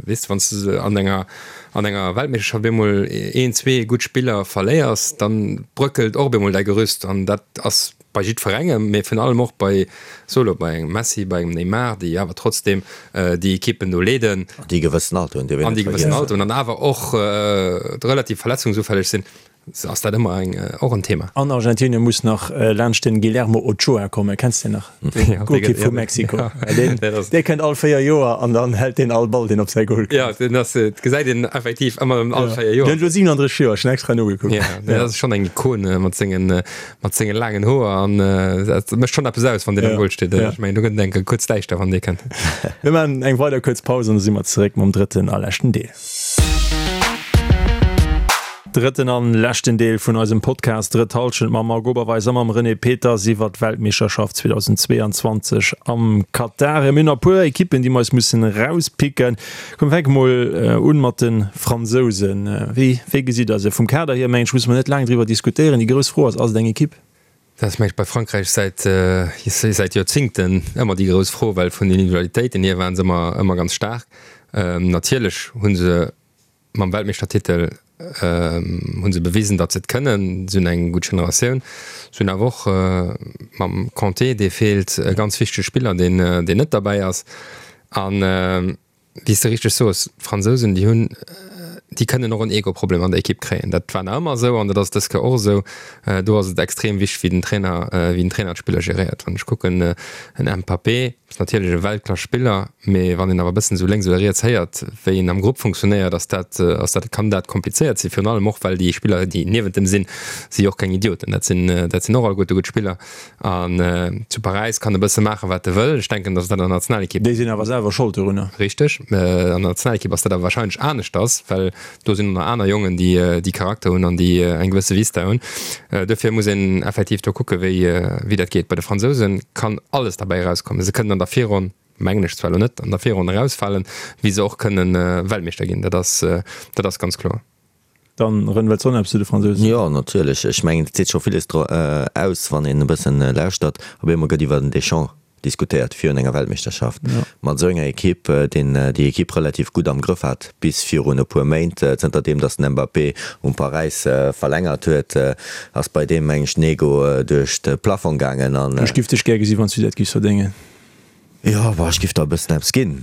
weess de, wann s de an enger, an enger Weltmeeschterschaft bemol een, zwee gutt Spiller verléiers, dann bröckelt och bemol däi Gerüst an dat ass bei jiddwerengem, mee virun allem och bei, so elo, bei engem Messi, bei engem Neymar, déi awer trotzdem déi Ekippen do leeden. An déi e gewëssen Alter hunn, dierf een net vergiessen. An déi e gewëssen Alter hunn an awer och relativ verletzungsufälleg sinn, ass dat ëmmer eng, och en Thema. An Argentinien muss nach laanscht den Guillermo Ochoa kommen, kenns de deen nach? Den Golkipp vu Mexiko. Dee kënnt all 4 Joer an dann hält deen all Ball, deen op säi Goal kënnt. Jo, deen ass, dat gesäit een effektiv ëmmer erëm all 4 Joer. Deen huet elo 37 Joer, ech hunn extra nogekuckt. Jo, dat ass schonn eng Ikon mat sengen, mat senge laangen Hoer an dat mécht schonn eppes aus, wann deen am Goal steet. Ech mengen, do gëtt et eng Kéier kuerz däischter, wann dee kënnt. Mir maachen eng weider kuerz Paus an da si mer zeréck mam drëtten a leschten Deel. Drëtten an leschten Deel vun eisem Podcast Drëtt Hallschent mam Marc Oberweis a mam René Peters iwwer d'Weltmeeschterschaft 2022 am Katar. Mir hunn nach e puer Ekippen, déi mer eis mussen erauspicken. Komm, fänke mol un mat de Fransousen. Wéi, wéi gesitt Der se? Vum Kader hier, mengen ech, musse mer net laang driwwer diskutéieren. Déi grouss Fro ass, Ass et eng Ekipp? Dat ass mengen ech bei Frankräich säit säit Joerzingten ëmmer déi grouss Fro, well vun den Individualitéiten hier waren se ëmmer ëmmer ganz staark. Natierlech hu se mam Weltmeeschtertitel hu se bewisen, datt se et kënnen. Se hunn eng gutt Generatioun. Se hunn awer och mam Kanté, dee feelt, e ganz wichtege Spiller, deen deen net derbäi ass. An Wéi s de richteg soos, d'Fransousen, déi hunn, déi kënnen och en Ego-Problem an der Ekipp kréien. Dat war nach ëmmer esou an dat ass dës Kéier och esou. Do ass et extrem wichteg, wéi den Trainer, wéi den Trainer d'Spiller geréiert. Wann ech kucken, en Mbappé ass natierlech e Weltklass-Spiller, mee wann een awer e bëssen esou lénks oder riets héiert, wéi en am Grupp funktionéiert, ass dat, ass dat, kann dat komplizéiert sinn. Virun allem och, well déi Spiller, déi niewent em sinn, si jo och keng Idioten. Dat sinn, dat sinn och alleguerte gutt Spiller. An zu Paräis kann e bësse maachen, wat e wëll. Ech denken, datt dat an der Nationalekipp. Déi sinn awer selwer Schold dorunner. Richteg. An der Nationalekipp ass dat awer warscheinlech aneschters, well do sinn och nach aner Jongen, déi déi Charakter hunn an déi eng gewësse Vista hunn. Duerfir muss een effektiv do kucken, wéi wéi dat geet. Bei de Fransouse kann alles derbäi erauskommen. Se kënnen an der Virronn, mengen ech zwar elo net, an der Virronn erausfalen, wéi se och kënnen Weltmeeschter ginn. Dat ass dat ass ganz kloer. Dann Ren, wëlls de och nach eppes zu de Fransousen? Jo, natierlech. Ech mengen, et seet scho villes dro aus, wann een e bëssen lauschtert. Op eemol gëtt iwwer den Deschamps diskutéiert virun enger Weltmeeschterschaft. Mat esou enger Ekipp, deen déi Ekipp relativ gutt am Grëff hat bis virun e puer Méint. Zënter deem, datt den Mbappé um Paräis verlängert huet, ass bei deem, meng ech, den Ego duerch de Plafong gaangen an. Ech giff dech gär gesi wann s du dat giffs verdéngen. Jo, bon, ech giff der e bëssen eppes ginn.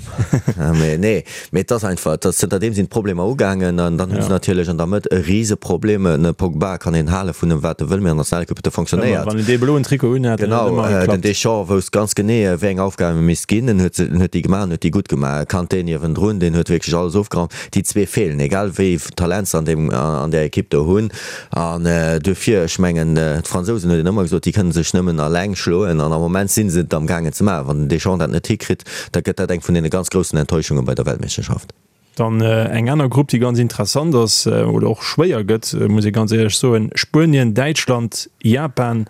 Mee nee, mee et ass einfach, et ass, zënterdeem sinn d'Problemer ugaangen an dann hu se natierlech an der Mëtt e Riseproblem. En Pogba kann een hale vun em wat e wëll, mee an der Nationalequipe huet e fonctionnéiert. Wann en dee bloen Trikot unhat, dann huet et ëmmer geklappt. Genau, den Deschamps wousst ganz genee, wéi eng Aufgaben em misst ginn. En huet se, en huet déi gemaach an huet déi gutt gemaach. Kanté niewendrun, deen huet wierklech alles ofgeraumt. Déi zwee feelen, egal wéi Talent se an deem, an där Equipe do hunn. An duerfir, ech mengen, d'Fransousen, huet een ëmmer gesot, déi kënne sech nëmmen alleng schloen. An am Moment si se et amgaangen ze maachen. Wann den Deschamps dat net hikritt, da gëtt dat eng vun deene ganz groussen Enttäuschunge bei der Weltmeeschterschaft. Dann eng aner Grupp, déi ganz interessant ass oder och schwéier gëtt, muss ee ganz éierlech soen, Spuenien, Däitschland, Japan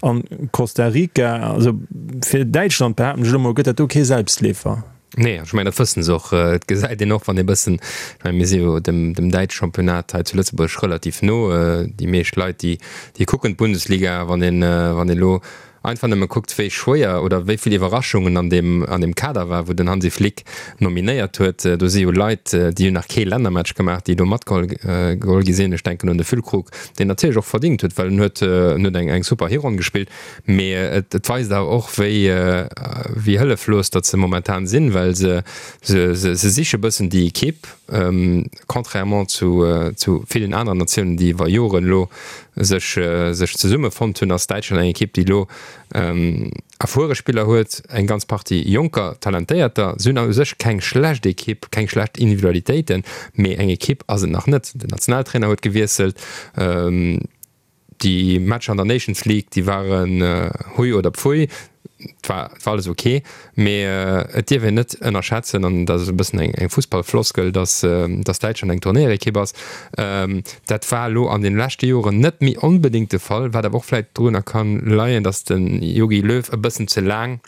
an Costa Rica. Also fir Däitschland, behaapten ech elo mol, gëtt dat do kee Selbstleefer. Nee, ech mengen, dat wëssen se och. Et gesäit een och, wann ee bëssen, ech mengen, mir si jo dem, dem däitsche Championnat hei zu Lëtzebuerg relativ no. Déi meescht Leit, déi, déi kucken d'Bundesliga. Wann een, wann een elo einfach nëmme kuckt, wéi schwéier oder wéi vill Iwwerraschungen an deem, an deem Kader war, wou den Hansi Flick nominéiert huet, do si jo Leit, déi hunn nach kee Lännermatch gemaach, déi do matgeholl geholl gi sinn. Ech denken un de Füllkrug, deen natierlech och verdingt huet, well en huet, en huet eng, eng super Hironn gespillt. Mee et weist awer och, wéi wéi hëlleflos datt se momentan sinn, well se se se siche bëssen déi Ekipp, contrairement zu zu villen aneren Natiounen, déi iwwer Joren elo sech sech zesummefonnt hunn, ass Däitschland eng Ekipp, déi elo erfuere Spiller huet, eng ganz Partie jonker, talentéierter. Se hunn u sech keng schlecht Ekipp, keng schlecht Individualitéiten, mee eng Ekipp ass et nach net. Den Nationaltrainer huet gewiesselt. Déi Matcher an der Nations League, déi waren hui oder pfui, et war alles ok, mee et dierf een net ënnerschätzen, an dat ass e bëssen eng Fussballfloskel, datt datt Däitschland eng Turnéierekipp ass. Dat war elo an de leschte Joren net méi onbedéngt de Fall, wat awer och vläicht dorunner kann leien, datt de Jogi Löw e bëssen ze laang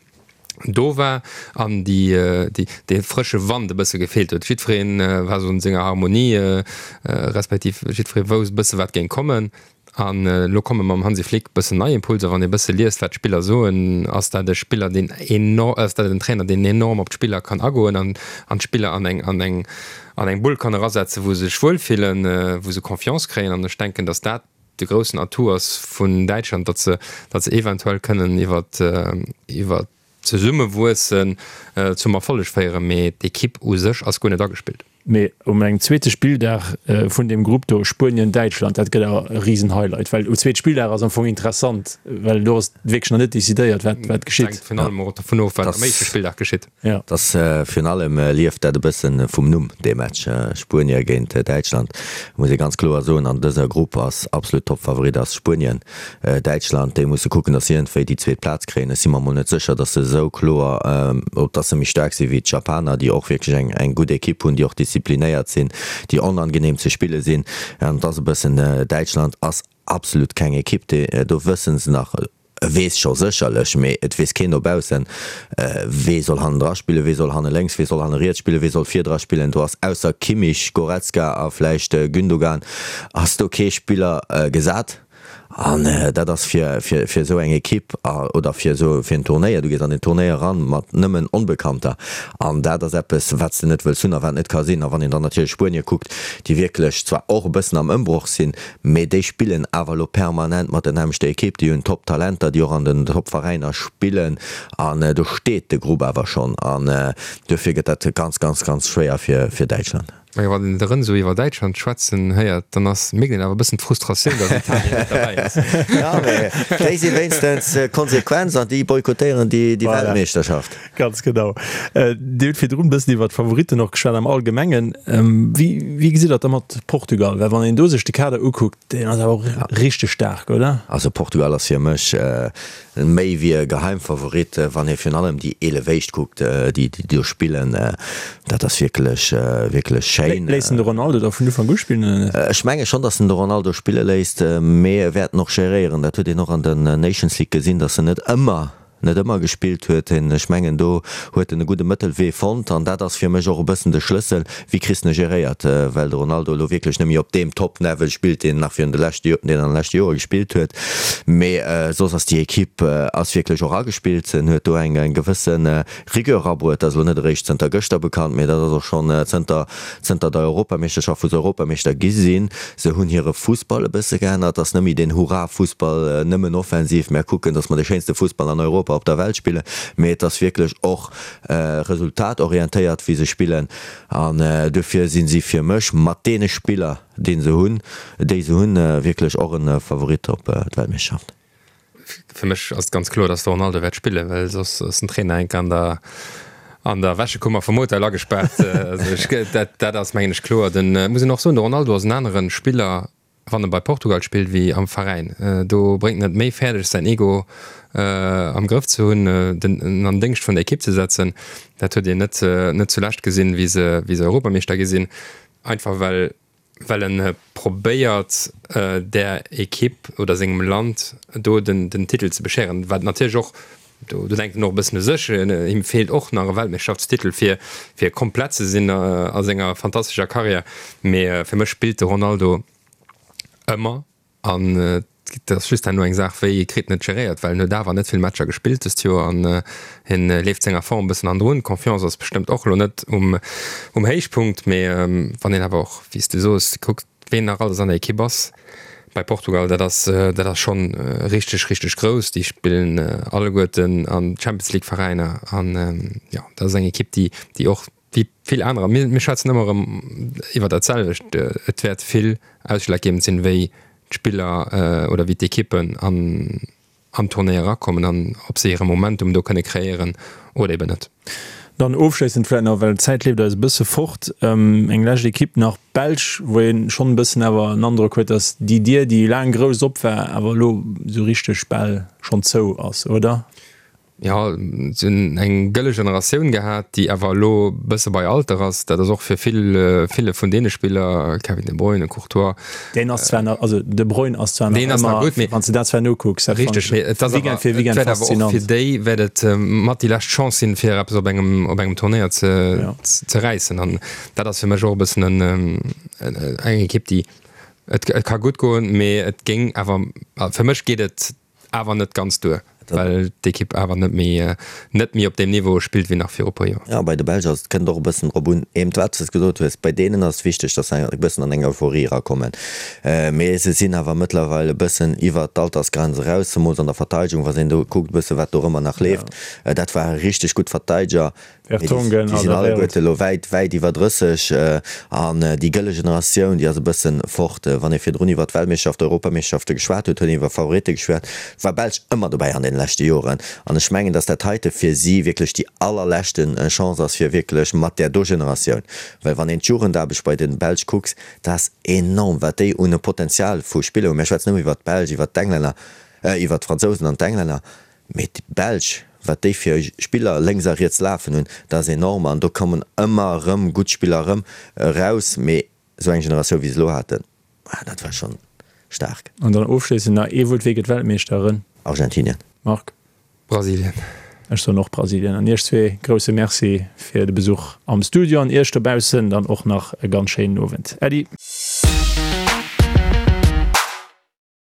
do war an déi dee frësche Wand e bësse gefeelt huet. Jiddweree war esou an senger Harmonie, respektiv jiddweree wousst e bësse wat géing kommen. An elo komme mam Hansi Flick e bëssen nei Impulser. Wann ee bësse liest wat d'Spiller soen, ass dat e Spiller deen enorm, ass dat en Trainer deen enorm op d'Spiller kann agoen an an d'Spiller an eng an eng an eng Bull kann erasetzen, wou se sech wuelfillen, wou se Confiance kréien. An ech denken, datt dat de groussen Atout ass vun Däitschland, datt se, datt se eventuell kënnen iwwer, iwwer d'Zesummewuessen zum Erfolleg féieren, mee d'Ekipp u sech ass guer net agespillt. Mee um engem zweete Spilldag vun deem Grupp do, Spuenien-Däitschland, dat gëtt awer e Risen-Highlight, well um zweete Spilldag ass am Fong interessant, well do ass wierklech nach net decidéiert, wat, wat geschitt. Et hänkt virun allem och dovun of, wat am éischte Spilldag geschitt. Ja. Dass virun allem lieft dat e bëssen vum Numm, dee Match Spuenie géint Däitschland. Muss ee ganz kloer soen, an dëser Grupp ass absolut Toppfavorit ass Spuenien. Däitschland, déi musse kucken, dass si iergendwéi déi zweet Plaz kréien. Ech si mer mol net sécher, dass se esou kloer, dass se méi staark si wéi d'Japaner, déi och wierklech eng eng gutt Ekipp hunn, déi och disziplinéiert sinn, déi onangenehm ze spille sinn. An et ass e bëssen, Däitschland ass absolut keng Ekipp, déi, do wësse se nach, E weess scho sécherlech, mee et weess keen dobaussen, wee soll hannendra spillen, wee soll hanne lénks, wee soll hanne riets spillen, wee soll virdra spillen. Do ass ausser Kimmich, Goretzka a vläicht Gündogan ass do kee Spiller gesat. An dat ass fir, fir, fir esou eng Ekipp oder fir esou, fir en Turnéier, du gees an en Turnéier eran mat nëmmen Onbekannter an dat ass eppes, wat s de net wëlls hunn a wat net ka sinn. A wann een dann natierlech Spuenie kuckt, déi wierklech zwar och e bëssen am Ëmbroch sinn, mee déi spillen awer elo permanent mat der nämmlechter Ekipp, déi hunn Top-Talenter, déi och an den Top-Veräiner spillen an do steet de Grupp awer schonn an duerfir gëtt dat ganz, ganz, ganz schwéier fir, fir Däitschland. Mä wann een de Renzo iwwer Däitschland schwätzen héiert, dann ass, mierkt een awer e bëssen d'Frustratioun, datt Italien net derbäi ass. Jo, mä déi si wéinstens konsequent an déi boykottéieren déi Weltmeeschterschaft. Ganz genau. Dir hutt virdrun e bëssen iwwer d'Favoritten och geschwat am Allgemengen. Wéi, wéi gesitt Der et da mat Portugal? Well wann een do sech de Kader ukuckt, deen ass awer och richteg staark, oder? Also Portugal ass fir mech Méi wéi e Geheimfavorit, wann ee virun allem déi 11 éischt kuckt, déi do spillen. Dat ass wierklech, wierklech schéin. Léisst en de Ronaldo da vun Ufank u spillen oder net? Ech menge schonn, datt en de Ronaldo spille léisst, mee e wäert en och geréieren. Dat huet een och an den Nations League gesinn, datt en net ëmmer, net ëmmer gespillt huet. Ech mengen, do huet en e gudde Mëttelwee fonnt an dat ass fir mech och e bëssen de Schlëssel, Wéi kriss de en geréiert, well de Ronaldo elo wierklech net méi op deem Top-Level spillt, deen en nach virun de leschte, deen an de leschte Joere gespillt huet. Mee soss ass déi Ekipp ass wierklech och agespillt. En huet do eng gewësse Rigueur erabruet. Dat ass elo net eréischt zënter gëschter bekannt, mee dat ass och schonn zënter zënter der Europameeschterschaft, wou se Europameeschter gi sinn. Se hunn hire Fussball e bësse geännert. Ass net méi deen Hurra-Fussball, nëmmen offensiv, mär kucken, datt mer de schéinste Fussball an Europa, op der Welt spillen, mee et ass wierklech och resultatorientéiert wéi se spillen an duerfir si si fir mech mat deene Spiller dee se hunn, déi se hunn, wierklech och e Favorit op d'Weltmeeschterschaft. Fir mech ass et ganz kloer, datt de Ronaldo wäert spillen, well soss ass den Trainer enk an der an der Wäschekummer vum Hotel agespaart. Also ech, dat dat ass mengen ech kloer. Den, muss een och soen, de Ronaldo ass en anere Spiller wann e bei Portugal spillt wéi am Veräin. Do bréngt en et méi fäerdeg säin Ego am Grëff ze hunn, den en an Déngscht vun der Ekipp ze setzen. Dat huet een net net zulescht gesinn, wéi se wéi se Europameeschter gi sinn, einfach well well en probéiert där Ekipp oder sengem Land do den den Titel ze bescheren, wat natierlech och Do denkt en och e bëssen u sech. Him feelt och nach e Weltmeeschtschaftstitel, fir fir komplett ze sinn a senger fantastescher Karriär. Mee fir mech spillt de Ronaldo ëmmer an et ass just herno eng Saach, wéi kritt en et geréiert, well en huet awer net vill Matcher gespillt dëst Joer an hien leeft senger Form e bëssen hannendrun. D'Confiance ass bestëmmt och elo net um Héichpunkt, mee wann een awer och, wéi s de soos, kuckt, Ween nach alles an der Ekipp ass bei Portugal, dat ass dat ass schonn richteg richteg grouss. Déi spillen alleguerten an Champions League Veräiner an jo dat ass eng Ekipp déi déi och wéi vill anerer, mir mir schwätzen ëmmer erëm iwwer dat selwecht, et wäert vill ausschlaggebend sinn wéi d'Spiller oder wéi d'Ekippen an an d'Tournée erakommen an ob se hire Momentum do kënne kreéieren oder eben net. Dann ofschléissend vläit nach, well d'Zäit leeft eis e bësse fort, eng lescht Ekipp nach, d'Belsch, wou ee schonn e bëssen awer en Androck huet, datt déi Dier, déi laang grouss op war, awer elo esou richteg bal schonn zou ass, oder? Jo, se hunn eng gëlle Generatioun gehat, déi awer elo e bësse bei Alter ass. Dat ass och fir vill, ville vun deene Spiller, Kevin De Bruyne, Courtois. Deen ass zwar nach, also De Bruyne ass zwar nach Deen ass nach gutt, mee. Wann s de dat zwar nokucks, dat fannen ech Richteg, mee et ass awer, Weekend fir et Weekend wäert awer och faszinant. fir déi wäert et mat déi lescht Chance sinn, fir eppes op engem, op engem Turnéier ze, ze räissen. An dat ass fir mech och e bëssen en, eng Ekipp, déi, et, et ka gutt goen, mee et géing awer, fir mech geet et Awer net ganz duer, well d'Ekipp awer net méi net méi op deem Niveau spillt wéi nach viru puer Joer. Jo, bei de Belsch ass et, kënnt och e bëssen drop un, eben wat s de gesot hues, bei deenen ass et wichteg, datt se e bëssen an eng Euphorie erakommen. Mee se sinn awer mëttlerweil e bëssen iwwert d'Altersgrenz eraus, zemools an der Verteidegung, wa s een do kuckt e bësse wat dorëmmer nach leeft. Dat ware richteg gutt Verteideger. Vertonghen, Déi sinn alleguerte elo wäit, wäit iwwer 30 an déi gëlle Generatioun, déi ass e bëssen fort. Wann ee virdrun iwwer d'Weltmeeschterschaft, Europameeschterschafte geschwat huet, huet een iwwer Favoritte geschwat, war Belsch ëmmer dobäi an deene leschte Joren. An ech mengen, datt dat heite fir si wierklech déi allerleschte Chance ass, fir wierklech mat där do Generatioun, well wann een d'Jugendaarbecht bei de Belsch kucks, dat ass enorm, wat déi un e Potenzial vu Spiller hunn. Mir schwätzen ëmmer iwwer d'Belsch, iwwer d'Englänner, iwwer d'Fransousen an d'Englänner. Mee déi Belsch, wat déi fir Spiller lénks a riets lafen hunn, dat ass enorm. An do kommen ëmmer erëm gutt Spiller erëm eraus. Mee esou eng Generatioun, wéi se elo haten, dat war schonn staark. An dann ofschléissend nach ee Wuert, Wie gëtt Weltmeeschter? Argentinien. Marc? Brasilien. Ech soen och Brasilien. An iech zwee grousse Merci fir de Besuch am Studio an iech dobaussen dann och nach e ganz schéinen Owend. Äddi.